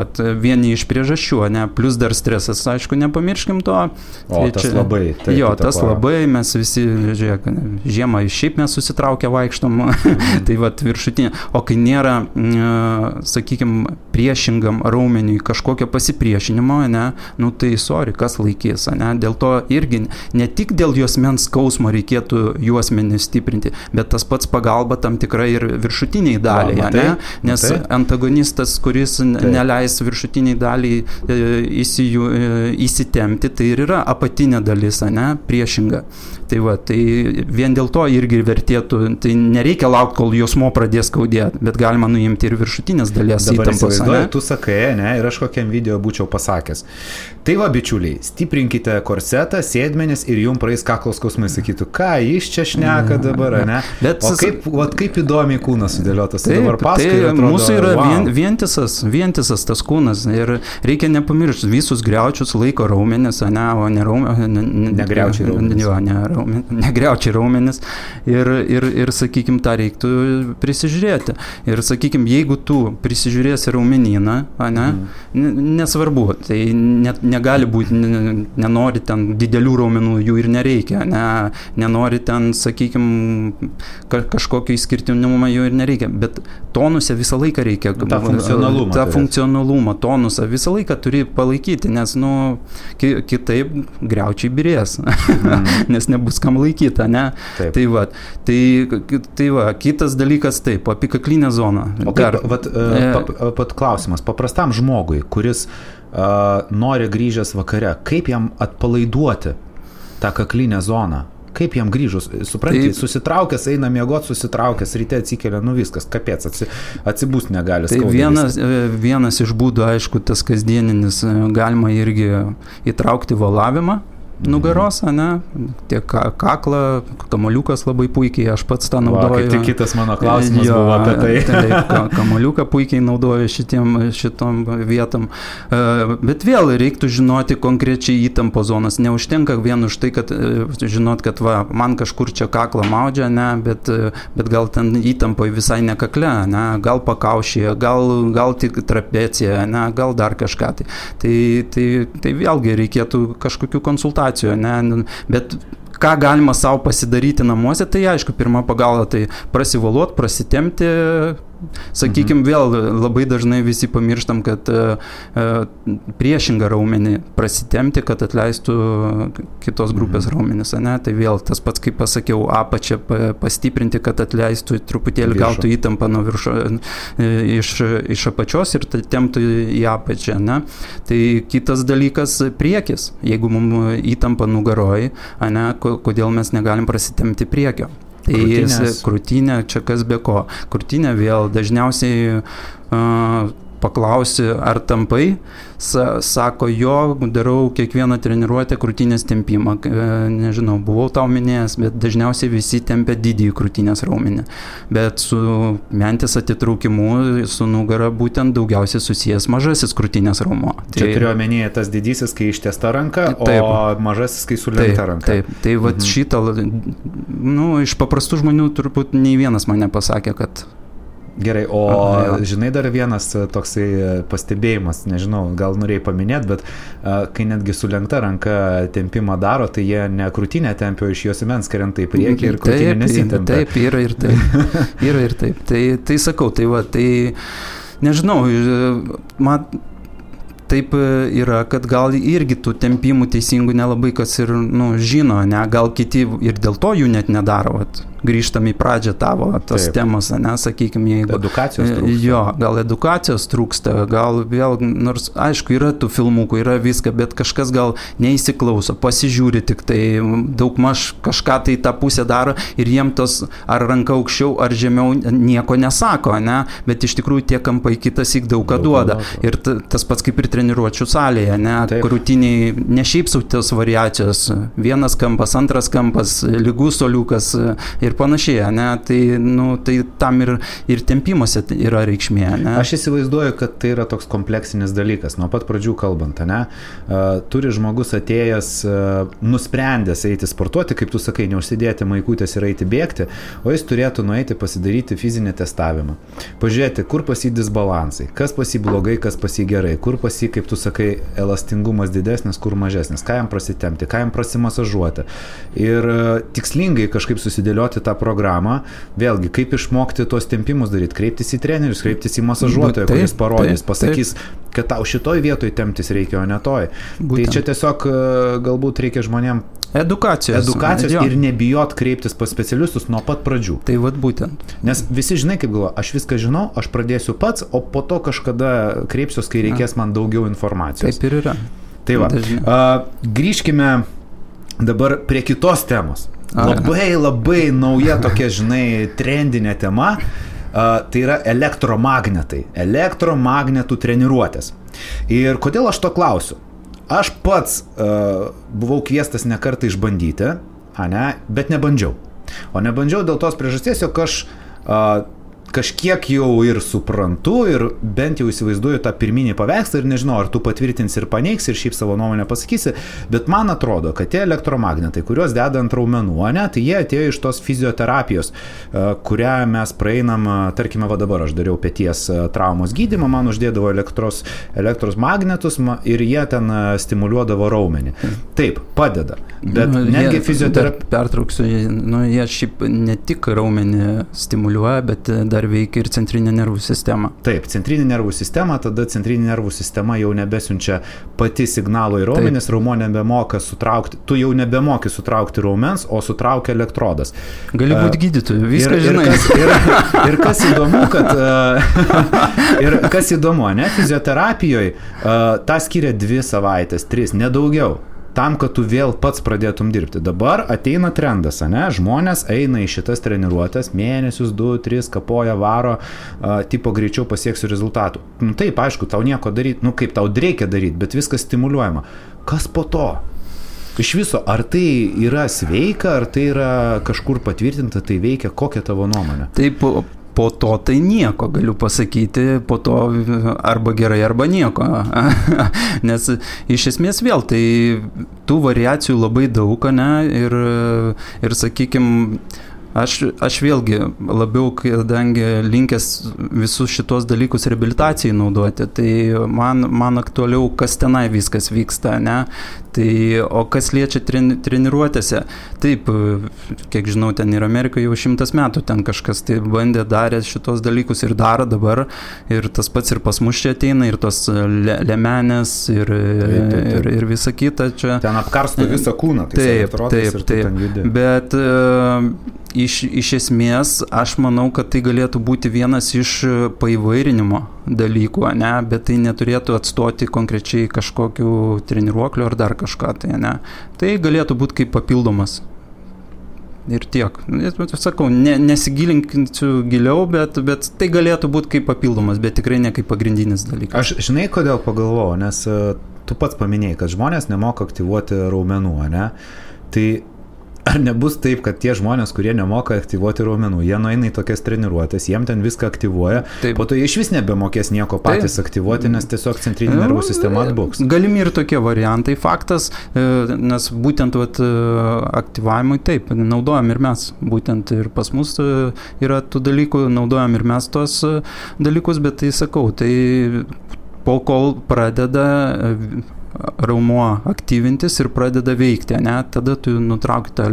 vieni iš priežasčių, ne? Plus dar stresas, aišku, nepamirškim to. O, tas labai. Tas labai, mes visi, žiūrėk, žiemą šiaip mes susitaukę vaikštom, tai viršutinė. O kai nėra, sakykime, priešingam raumeniui kažkokio pasipriešinimo, ne, nu tai sorry, kas laikys, ne, dėl to irgi ne tik dėl juosmens skausmo reikėtų juosmenį stiprinti, bet tas pats pagalba tam tikrai ir viršutiniai daliai, ne, nes antagonistas, kuris neleis viršutiniai daliai įsitempti, tai ir yra apatinė dalis, ne, priešinga. Tai va, tai vien dėl to irgi vertėtų, tai nereikia laukti, kol jausmo pradės skaudėti, bet galima nuimti ir viršutinės dalies įtampos. Dabar tu sakai, ne, ir aš kokiam video būčiau pasakęs. Tai va, bičiuliai, stiprinkite korsetą, sėdmenis ir jums praeis kaklo skausmai, sakytų, ką jis čia šneka dabar, ne? Bet, o kaip įdomiai kūnas sudėliotas. Taip, dabar paskui, tai atrodo, mūsų yra vientisas tas kūnas ir reikia nepamiršti, visus griaučius laiko raumenis, ne, o ne raumenis. Negriaučiai raumenis. Negriaučiai raumenis ir sakykim, tą reiktų prisižiūrėti. Ir sakykim, jeigu tu prisižiūrėsi raumenyną, ne, nesvarbu, tai negali būti, nenori ten didelių raumenų, jų ir nereikia, nenori ten, sakykim, kažkokio išskirtinumą jų ir nereikia, bet tonuse visą laiką reikia. Ta funkcionalumą, tonusą visą laiką turi palaikyti, nes, nu, kitaip griaučiai birės, nes nebus kam laikyta, ne? Taip. Tai va, kitas dalykas taip, apikaklinė zona. O pat klausimas, paprastam žmogui, kuris nori grįžęs vakare, kaip jam atpalaiduoti tą kaklinę zoną? Kaip jam grįžus? Supranti, susitraukęs, eina miegoti, susitraukęs, ryte atsikelia, nu viskas, kapėts, atsibūst negali. Tai vienas iš būdų, aišku, tas kasdieninis, galima irgi įtraukti valavimą nugaros, ne? Tiek kaklą, kamoliukas labai puikiai, aš pats tą naudoju. Kaip tik kitas mano klausimas buvo apie tai. Taip, kamoliuką puikiai naudoju šitom vietom. Bet vėl reiktų žinoti konkrečiai įtampo zonas. Neužtenka vien už tai, kad žinot, kad va, man kažkur čia kaklą maudžia, ne? Bet gal ten įtampoje visai ne kakle, ne? Gal pakaušyje, gal tik trapecija, ne? Gal dar kažką. Tai vėlgi reikėtų kažkokių konsultacijų. Ne? Bet ką galima savo pasidaryti namuose, tai aišku, pirma pagalba, tai prasivaluot, prasitemti, sakykim, vėl labai dažnai visi pamirštam, kad priešingą raumenį prasitemti, kad atleistų kitos grupės raumenis, ne? Tai vėl tas pats, kaip pasakiau, apačią pastiprinti, kad atleistų truputėlį, gautų įtampą nuo iš apačios ir temptų į apačią, ne? Tai kitas dalykas priekis, jeigu mums įtampa nugaroj, ne? Kodėl mes negalim prasitemti priekio. Tai krūtinė, čia kas be ko. Krūtinė vėl dažniausiai paklausi, ar tampai, sako, jo, darau kiekvieną treniruotę krūtinės tempimą. Nežinau, buvau tau minėjęs, bet dažniausiai visi tempia didįjį krūtinės raumenį. Bet su mentės atitraukimu, su nugara būtent daugiausiai susijęs mažasis krūtinės raumo. Čia turiu omenyje tas didysis, kai ištiesta ranka, taip, o mažasis, kai sulenkta ranka. Taip, tai vat šitą, nu, iš paprastų žmonių turbūt nei vienas man nepasakė, kad Gerai, o žinai dar vienas toksai pastebėjimas, nežinau, gal norėjai paminėti, bet kai netgi sulenkta ranka tempimą daro, tai jie ne krūtinę tempia, iš jos imens krenta į priekį ir krūtinė nesitempia. Taip, yra ir taip. Yra ir taip. Tai sakau, tai va, tai nežinau, taip yra, kad gal irgi tų tempimų teisingų nelabai kas ir žino, ne, gal kiti ir dėl to jų net nedaro. Vat. Grįžtam į pradžią tavo tas temas, ne, sakykime, jeigu edukacijos trūksta. Jo, gal edukacijos trūksta, gal vėl, nors aišku, yra tų filmukų, yra viską, bet kažkas gal neįsiklauso, pasižiūri tik tai, daugmaž kažką tai tą pusę daro ir jiem tos ar ranka aukščiau, ar žemiau nieko nesako, ne, bet iš tikrųjų tie kampai kitas įk daug ką duoda. Ir tas pats kaip ir treniruočių salėje, ne, krūtiniai, ne šiaip sau tos variacijos, vienas kampas, antras kampas, lygus soliukas ir panašiai, ne, tai tam ir tempimuose yra reikšmė, ne. Aš įsivaizduoju, kad tai yra toks kompleksinis dalykas, nuo pat pradžių kalbant, ne, turi žmogus atėjęs, nusprendęs eiti sportuoti, kaip tu sakai, neužsidėti maikutės ir eiti bėgti, o jis turėtų nueiti pasidaryti fizinį testavimą, pažiūrėti, kur pas jį disbalansai, kas pas jį blogai, kas pas jį gerai, kur pas jį, kaip tu sakai, elastingumas didesnis, kur mažesnis, ką jam prasitemti, ką jam prasimasažuoti ir tikslingai kažkaip susidėlioti tą programą, vėlgi, kaip išmokti tuos tempimus daryti, kreiptis į trenerius, kreiptis į masažuotoją, kuris parodys, pasakys, kad tau šitoj vietoj temptis reikia, o ne toj. Būtent. Tai čia tiesiog galbūt reikia žmonėm edukacijos ir nebijot kreiptis pas specialistus nuo pat pradžių. Tai vat būtent. Nes visi žinai, kaip galvoja, aš viską žinau, aš pradėsiu pats, o po to kažkada kreipsiuos, kai reikės man daugiau informacijos. Taip ir yra. Tai va, grįžkime dabar prie kitos temos. Labai nauja tokia, žinai, trendinė tema. Tai yra elektromagnetų treniruotės. Ir kodėl aš to klausiu? Aš pats buvau kviestas ne kartą išbandyti, bet nebandžiau. O nebandžiau dėl tos priežasties, jog aš kažkiek jau ir suprantu ir bent jau įsivaizduoju tą pirminį paveikslą ir nežinau, ar tu patvirtinsi ir paneigs ir šiaip savo nuomonę pasakysi, bet man atrodo, kad tie elektromagnetai, kuriuos deda ant raumenų, tai jie atėjo iš tos fizioterapijos, kurią mes praeinam, tarkime, va dabar aš dariau peties traumos gydymą, man uždėdavo elektros magnetus ir jie ten stimuliuodavo raumenį. Taip, padeda, bet netgi fizioterapija... Pertrauksiu, jie šiaip ne tik raumenį stimuliuoja, bet dar veikia ir centrinė nervų sistema. Taip, centrinė nervų sistema, tada centrinė nervų sistema jau nebesiunčia pati signalo į raumenis, raumo nebemoka sutraukti, tu jau nebemoki sutraukti raumens, o sutraukia elektrodas. Gali būti gydytoju, viską žinai. Ir kas įdomu, kad ir kas įdomu, fizioterapijoje tą skiria 2 savaitės, 3, nedaugiau. Tam, kad tu vėl pats pradėtum dirbti. Dabar ateina trendas, žmonės eina į šitas treniruotės, mėnesius, 2, 3, kapoja, varo, tipo greičiau pasieksiu rezultatų. Taip, aišku, tau nieko daryti, kaip tau reikia daryti, bet viskas stimuliuojama. Kas po to? Iš viso, ar tai yra sveika, ar tai yra kažkur patvirtinta, tai veikia, kokia tavo nuomonė? Taip, po to tai nieko, galiu pasakyti, po to arba gerai, arba nieko. Nes iš esmės vėl, tai tų variacijų labai daug, ir sakykime, aš vėlgi labiau, kadangi linkęs visus šitos dalykus reabilitacijai naudoti, tai man aktualiau, kas tenai viskas vyksta, Tai, o kas liečia treniruotėse, taip, kiek žinau, ten ir Amerikoje jau 100 metų ten kažkas tai bandė, darė šitos dalykus ir daro dabar, ir tas pats ir pas mus čia ateina, ir tos lemenės, ir visa kita čia. Ten apkarsto visą kūną, tai taip, bet iš esmės aš manau, kad tai galėtų būti vienas iš paįvairinimo dalykų, bet tai neturėtų atstoti konkrečiai kažkokių treniruoklių ar dar kažką, tai galėtų būti kaip papildomas. Ir tiek. Sakau, nesigilinsiu giliau, bet tai galėtų būti kaip papildomas, bet tikrai ne kaip pagrindinis dalykas. Aš žinai, kodėl pagalvojau, nes tu pats paminėjai, kad žmonės nemoka aktyvuoti raumenų, Tai ar nebus taip, kad tie žmonės, kurie nemoka aktyvuoti raumenų, jie nueina į tokias treniruotės, jiem ten viską aktyvuoja, po to jie iš vis nebemokės nieko patys aktyvuoti, nes tiesiog centrinė nervų sistema atbuks. Galimi ir tokie variantai, faktas, nes būtent aktyvavimui taip, naudojam ir mes, būtent ir pas mus yra tų dalykų, naudojam ir mes tos dalykus, bet tai sakau, tai po kol pradeda raumuo aktyvintis ir pradeda veikti, tada tu nutrauki tą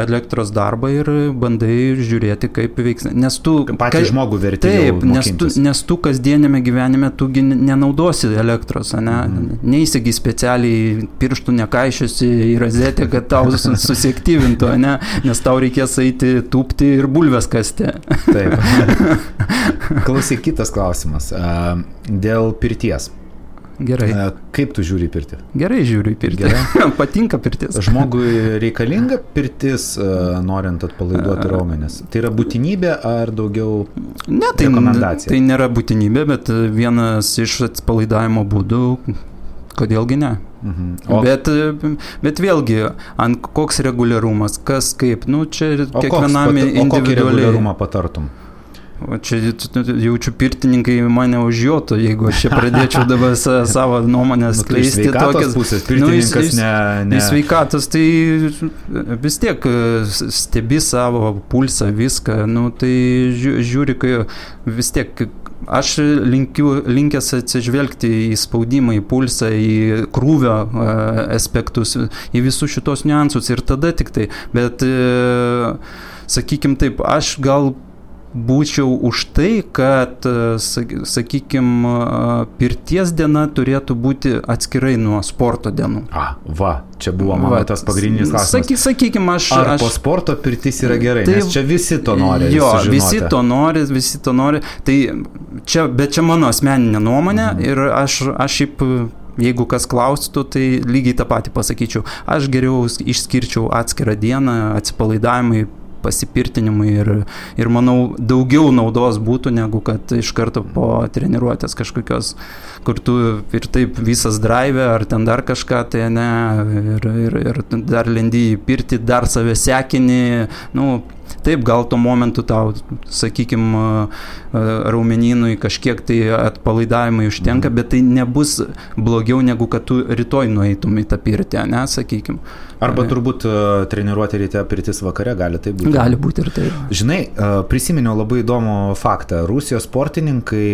elektros darbą ir bandai žiūrėti, kaip veiks. Nes tu patį žmogų verti jau mokintis. Nes tu kasdienėme gyvenime tu nenaudosi elektros, neįsigi specialiai pirštų nekaišiosi į rozetę, kad tau susiaktyvintų, nes tau reikės eiti tūpti ir bulves kasti. Taip. Klausyk, kitas klausimas. Dėl pirties. Gerai. Kaip tu žiūri į pirtį? Gerai žiūriu į pirtį. Patinka pirtis. Žmogui reikalinga pirtis, norint atpalaiduoti raumenis? Tai yra būtinybė ar daugiau rekomendacija? Tai nėra būtinybė, bet vienas iš atpalaidavimo būdų, kodėlgi ne. Bet vėlgi, koks reguliarumas, kas kaip, čia kiekvienam individualiai. O kokį reguliarumą patartum? Čia jaučiu pirtininkai mane užjotų, jeigu aš čia pradėčiau dabar savo nuomonę skleisti. Sveikatos pusės, pirtininkas ne. Sveikatos, tai vis tiek stebi savo pulsą, viską, tai žiūri, kai vis tiek aš linkęs atsižvelgti į spaudimą, į pulsą, į krūvio aspektus, į visus šitos niuansus ir tada tik tai, bet sakykim taip, aš gal būčiau už tai, kad, sakykime, pirties diena turėtų būti atskirai nuo sporto dienų. Čia buvo mano tas pagrindinis klausimas. Sakykime, Ar po sporto pirtis yra gerai, nes čia visi to nori. Jo, visi to nori. Tai bet čia mano asmeninė nuomonė ir aš šiaip, jeigu kas klaustų, tai lygiai tą patį pasakyčiau. Aš geriau išskirčiau atskirą dieną, atsipalaidavimui, pasipirtinimui ir manau daugiau naudos būtų, negu kad iš karto po treniruotės kažkokios, kur tu ir taip visas drive ar ten dar kažką, tai ne, ir dar lendi į pirtį, dar save sekini, taip, gal tuo momentu tau, sakykime, raumenynui kažkiek tai atpalaidavimai užtenka, bet tai nebus blogiau, negu kad tu rytoj nueitum į tą pirtį, ne, sakykime. Arba turbūt treniruoti ryte, pirtis vakare, gali tai būti. Gali būti ir taip. Žinai, prisiminiau labai įdomų faktą. Rusijos sportininkai,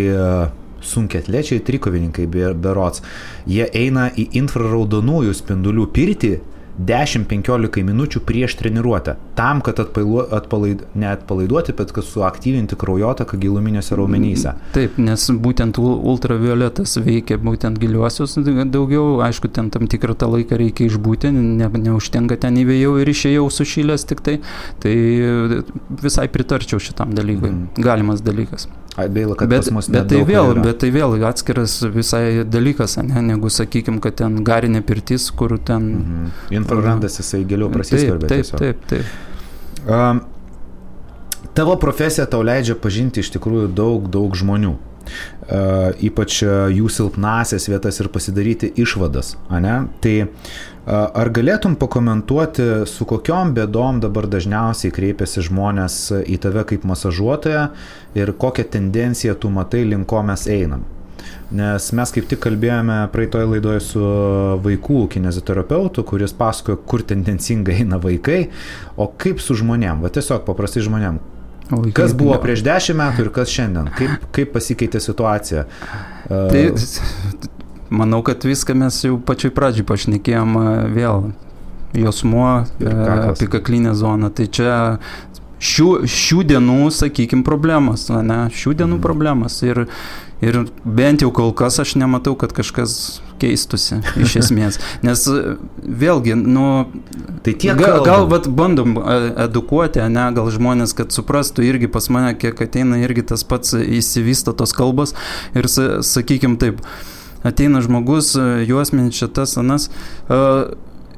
sunkiaatlečiai, trikovininkai berods, jie eina į infraraudonųjų spindulių pirtį 10-15 minučių prieš treniruotę, tam, kad neatpalaiduoti, bet kad suaktyvinti kraujotaką giluminiuose raumenyse. Taip, nes būtent ultravioletas veikia būtent giliuosius daugiau, aišku, ten tam tikrą tą laiką reikia išbūti, neužtenka ten įvėjau ir išėjau sušilęs tik tai visai pritarčiau šitam dalykui, galimas dalykas. Gaila, kad pas mus bet tai vėl atskiras visai dalykas, ne, negu sakykime, kad ten garinė pirtis, kur ten... Infrarandas jisai giliau prasiskverbia. Taip. Tavo profesija tau leidžia pažinti iš tikrųjų daug žmonių. Ypač jų silpnasias vietas ir pasidaryti išvadas, ane? Tai ar galėtum pakomentuoti, su kokiom bėdom dabar dažniausiai kreipiasi žmonės į tave kaip masažuotoją ir kokią tendenciją tu matai, link ko mes einam? Nes mes kaip tik kalbėjome praeitoje laidoje su vaikų kineziterapeutu, kuris pasakojo, kur tendencingai eina vaikai, o kaip su žmonėm, tiesiog paprastai žmonėm. Kas buvo prieš 10 metų ir kas šiandien? Kaip pasikeitė situacija? Tai manau, kad viską mes jau pačioj pradžioj pašnekėjom vėl. Jausmuo, apikaklinė zona. Tai čia šių dienų, sakykime, problemas. Ne? Šių dienų problemas. Ir bent jau kol kas aš nematau, kad kažkas keistusi iš esmės. Nes vėlgi, tai gal bandom edukuoti, ne, gal žmonės, kad suprastų irgi pas mane, kiek ateina irgi tas pats įsivysto tos kalbos ir sakykim taip, ateina žmogus, juosmenis šitas, anas,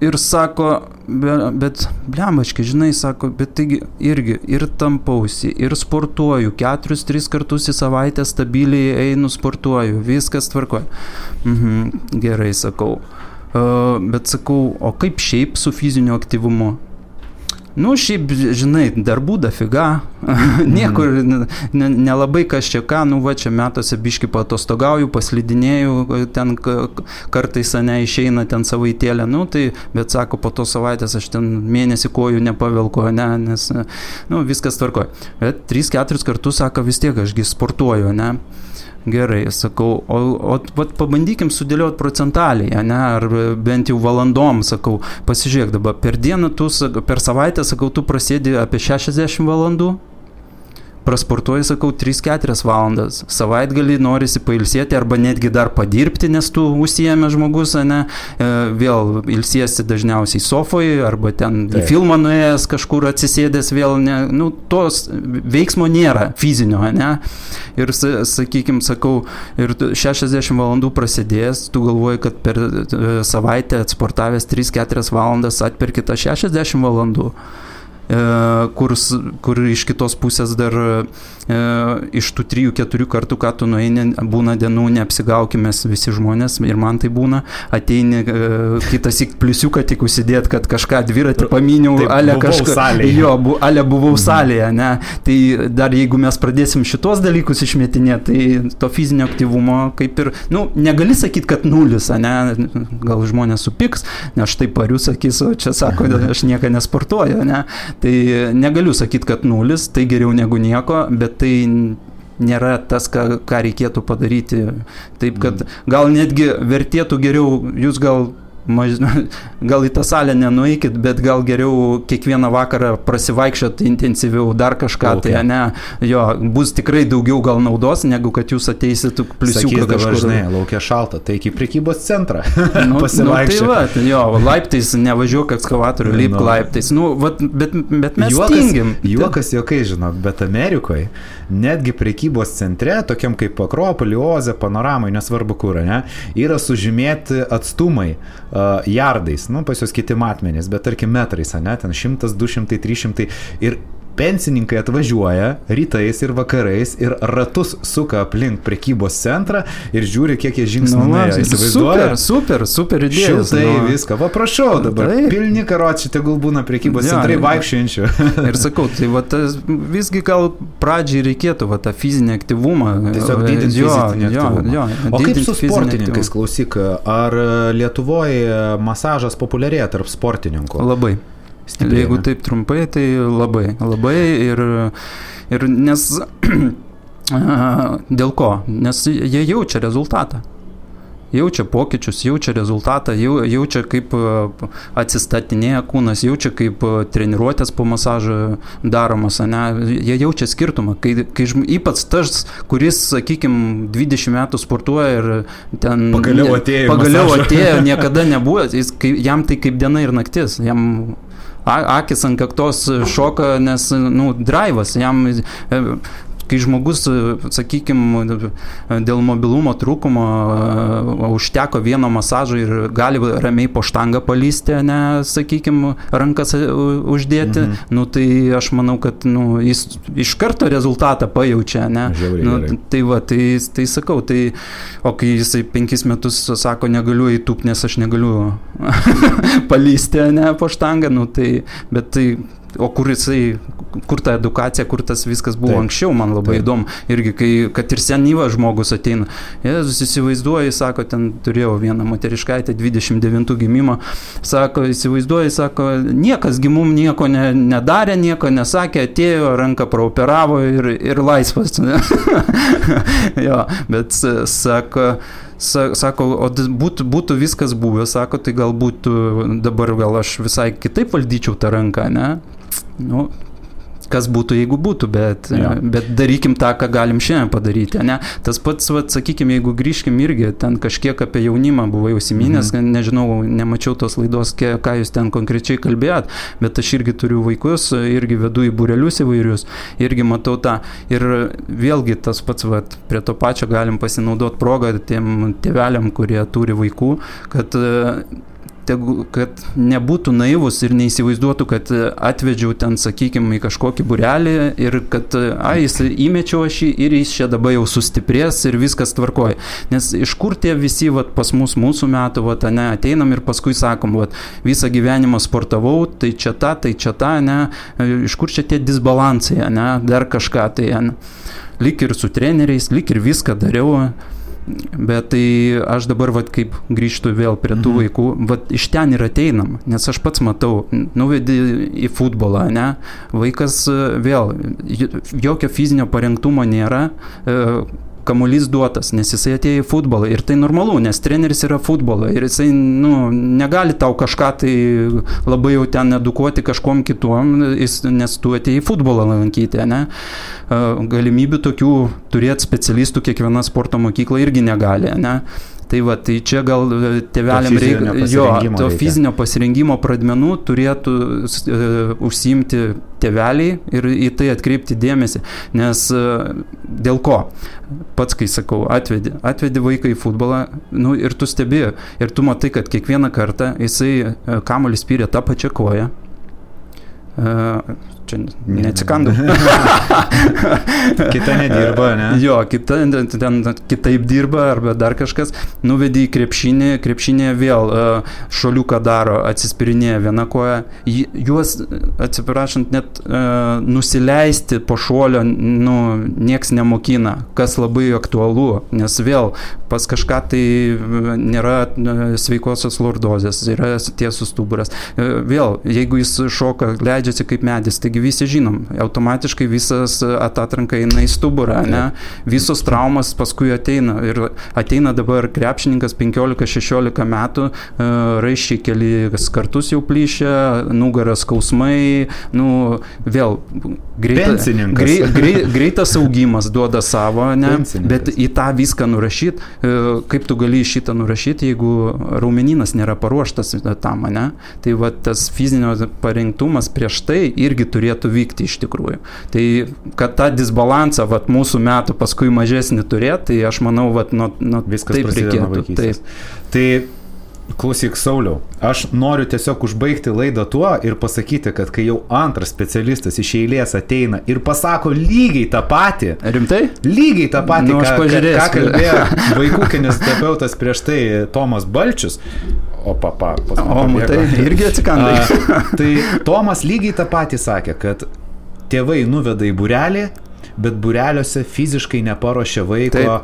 ir sako, bet blembačkai, žinai, sako, bet taigi irgi ir tampausi, ir sportuoju, 4-3 kartus į savaitę stabiliai einu sportuoju, viskas tvarkoja. Gerai, sakau. Bet sakau, o kaip šiaip su fiziniu aktyvumu? Šiaip, žinai, darbų dafiga, niekur nelabai kas čia ką, čia metuose biški paatostogauju, paslidinėju, ten kartais išeina ten savaitėlę, tai, bet sako, po to savaitės aš ten mėnesį kojų nepavelko, nes, viskas tvarkoja. Bet 3-4 kartus, sako, vis tiek ašgi sportuoju, ne? Gerai, sakau, o pabandykim sudėlioti procentaliai, ne, ar bent jau valandom, sakau, pasižiūrėk dabar, per dieną per savaitę, sakau, tu prasėdi apie 60 valandų, prasportuoji, sakau, 3-4 valandas, savaitgalį norisi pailsėti arba netgi dar padirbti, nes tu užsiėmė žmogus, ne, vėl ilsiesi dažniausiai sofoje arba ten į filmą nuėjęs kažkur atsisėdęs vėl, ne, tos veiksmo nėra fizinio, ne, ir sakykim, sakau, ir 60 valandų prasidėjęs, tu galvoji, kad per savaitę atsportavęs 3-4 valandas atperki tą 60 valandų. Kur iš kitos pusės dar iš tų 3-4 kartų, ką tu nueini, būna dienų, neapsigaukime visi žmonės, ir man tai būna, ateini kitas į pliusiuką tik užsidėt, kad kažką dviratį paminiau, ale kažką, ale buvau salėje, ne, tai dar jeigu mes pradėsim šitos dalykus išmetinėti, tai to fizinio aktyvumo kaip ir, negali sakyti, kad nulis, ne, gal žmonės supiks, nes aš tai pariu, sakys, o čia sako, aš nieką nesportuoju, ne. Tai negaliu sakyti, kad nulis, tai geriau negu nieko, bet tai nėra tas, ką reikėtų padaryti. Taip, kad gal netgi vertėtų geriau, jūs gal į tą salę nenueikit, bet gal geriau kiekvieną vakarą prasivaikščiot intensyviau, dar kažką, tai ne, jo, bus tikrai daugiau gal naudos, negu kad jūs ateisit pliusiuką kažkur. Žinai, laukia šalta, tai iki prekybos centrą pasivaikščiot. Tai va, jo, laiptais nevažiuok ekskavatorių, lipk laiptais, bet mes tingim. Juokas jokai, žinok, bet Amerikoje netgi prekybos centre, tokiam kaip Akropolį, Oze, Panoramai, nesvarbu kur, ne, yra sužymėti atstumai jardais, pas jos kiti matmenys, bet tarkim metrais, ne, ten 100, 200, 300 ir pensininkai atvažiuoja rytais ir vakarais ir ratus suka aplink prekybos centrą ir žiūri, kiek jie žingsnių nuėjo. Įsivaizduoja? Super idėjas. Šiltai viską. Va, prašau dabar. Pilni karočiai tegul būna prekybos centrai vaikščiančių. Ir sakau, tai va, visgi gal pradžiai reikėtų va, tą fizinį aktyvumą. Tiesiog didinti fizinį aktyvumą. O kaip su sportininkais, klausyk, ar Lietuvoje masažas populiarėja tarp sportininkų? Labai. Stipriai, jeigu taip trumpai, tai labai ir nes dėl ko? Nes jie jaučia rezultatą. Jaučia pokyčius, jaučia rezultatą, jaučia kaip atsistatinėja kūnas, jaučia kaip treniruotės po masažo daromas, ne? Jie jaučia skirtumą, kai ypač tas, kuris, sakykime, 20 metų sportuoja ir ten pagaliau atėjo, niekada nebuvo, jam tai kaip diena ir naktis, jam akis ant kaktos šoka, nes, draivas, jam, kai žmogus, sakykime, dėl mobilumo trūkumo užteko vieno masažo ir gali ramiai po štangą palysti, ne, sakykime, rankas uždėti, tai aš manau, kad jis iš karto rezultatą pajaučia, ne. Tai va, tai sakau, o kai jisai 5 metus sako, negaliu įtūpti, nes aš negaliu palysti, ne, po štangą, bet tai o kur ta edukacija, kur tas viskas buvo anksčiau, man labai įdomu. Irgi, kad ir senyvas žmogus ateina. Jėzus įsivaizduoja, sako, ten turėjau vieną moteriškaitę, 29 gimimo, sako, įsivaizduoja, sako, niekas gimum nieko nedarė, nieko nesakė, atėjo, ranką praoperavo ir laisvas. Jo, bet sako, o būtų viskas buvę, sako, tai galbūt dabar gal aš visai kitaip valdyčiau tą ranką, ne? Kas būtų, jeigu būtų, bet darykim tą, ką galim šiandien padaryti, ne? Tas pats, sakykime, jeigu grįžkim irgi, ten kažkiek apie jaunimą buvau užsiminęs, nežinau, nemačiau tos laidos, ką jūs ten konkrečiai kalbėjot, bet aš irgi turiu vaikus, irgi vedu į būrelius įvairius, irgi matau tą. Ir vėlgi tas pats, prie to pačio galim pasinaudoti progą tiem tėveliam, kurie turi vaikų, kad nebūtų naivus ir neįsivaizduotų, kad atvedžiau ten, sakykime, į kažkokį būrelį ir kad, jis įmečiau aš jį ir jis čia dabar jau sustiprės ir viskas tvarkoja. Nes iš kur tie visi, pas mūsų metų, ateinam ir paskui sakom, visą gyvenimą sportavau, tai čia ta, ne, iš kur čia tie disbalansai, ne, dar kažką, tai, ne, lyg ir su treneriais, lyg ir viską dariau. Bet tai aš dabar, kaip grįžtu vėl prie tų vaikų, iš ten ir ateinam, nes aš pats matau, nuvedi į futbolą, ne, vaikas vėl, jokio fizinio parengtumo nėra, kamuolys duotas, nes jisai atėjo į futbolą ir tai normalu, nes treneris yra futbolą ir jisai, negali tau kažką tai labai jau ten edukuoti kažkom kituom, nes tu atėjai į futbolą lankyti, ne? Galimybių tokių turėti specialistų kiekviena sporto mokykla irgi negali, ne? Tai čia gal tėveliam reikia, fizinio pasirengimo pradmenų turėtų užsiimti tėveliai ir į tai atkreipti dėmesį, nes dėl ko? Pats, kai sakau, atvedi vaiką į futbolą, ir tu stebi, ir tu matai, kad kiekvieną kartą jisai kamuolį spyrė tą pačią koją. Čia neatsikandau. Kita nedirba, ne? Jo, kitaip dirba arba dar kažkas. Nuvedi į krepšinį vėl šoliuką daro, atsispirinėja viena koja. Juos, atsiprašant, net nusileisti po šuolio, nieks nemokina, kas labai aktualu, nes vėl pas kažką tai nėra sveikosios lordozės, yra tiesus stuburas. Vėl, jeigu jis šoka, leidžiasi kaip medis, taigi visi žinom, automatiškai visas atatranka eina į stuburą, ne? Visos traumas paskui ateina ir ateina dabar krepšininkas 15-16 metų, raiščiai kelis kartus jau plyšia, nugaras skausmai, vėl greitas augimas duoda savo, ne? Bet į tą viską nurašyt, kaip tu gali šitą nurašyti, jeigu raumeninas nėra paruoštas tam, ne? Tai va tas fizinio parengtumas prieš tai irgi turėtų vykti iš tikrųjų. Tai kad tą disbalansą vat, mūsų metų paskui mažesnį turėti, tai aš manau, vat, viskas taip prasideda nuo vaikystės. Tai klausyk, Sauliau, aš noriu tiesiog užbaigti laidą tuo ir pasakyti, kad kai jau antras specialistas iš eilės ateina ir pasako lygiai tą patį. Rimtai? Lygiai tą patį, ką kalbėjo vaikų kineziterapeutas prieš tai Tomas Balčius. Tai irgi atsikandai. Tai Tomas lygiai tą patį sakė, kad tėvai nuveda į būrelį, bet būreliuose fiziškai neparuošia vaiko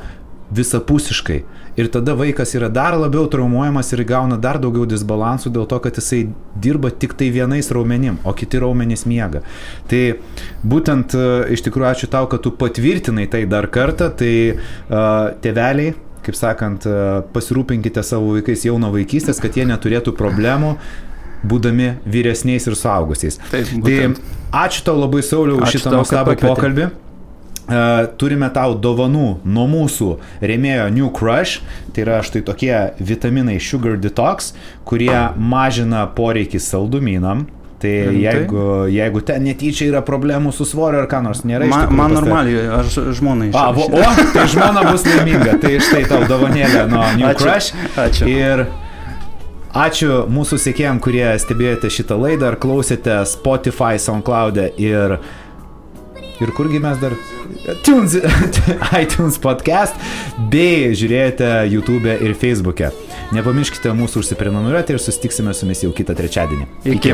visapusiškai. Ir tada vaikas yra dar labiau traumuojamas ir gauna dar daugiau disbalansų dėl to, kad jisai dirba tik tai vienais raumenim, o kiti raumenys miega. Tai būtent iš tikrųjų ačiū tau, kad tu patvirtinai tai dar kartą, tai tėveliai, kaip sakant, pasirūpinkite savo vaikais jau nuo vaikystės, kad jie neturėtų problemų, būdami vyresniais ir suaugusiais. Tai ačiū tau labai, Sauliau, už šitą nuostabų pokalbį. Turime tau dovanų nuo mūsų rėmėjo New Crush, tai yra štai tokie vitaminai Sugar Detox, kurie mažina poreikį saldumynam. Tai jeigu ten netyčia yra problemų su svoriu ar ką nors nėra iš tikrųjų. Man normaliai, aš žmonai išrašau. Tai žmona bus laiminga, tai štai tau dovanėlė nuo New Crush. Ačiū. Ir ačiū mūsų sekėjam, kurie stebėjote šitą laidą ar klausėte Spotify, SoundCloud'e ir kurgi mes dar iTunes podcast, bei žiūrėjote YouTube'e ir Facebook'e. Nepamirškite mūsų užsiprenumeruoti ir susitiksime su jumis jau kitą trečiadienį. Iki.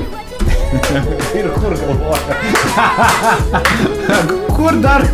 Ir kur galvoja? Kur dar?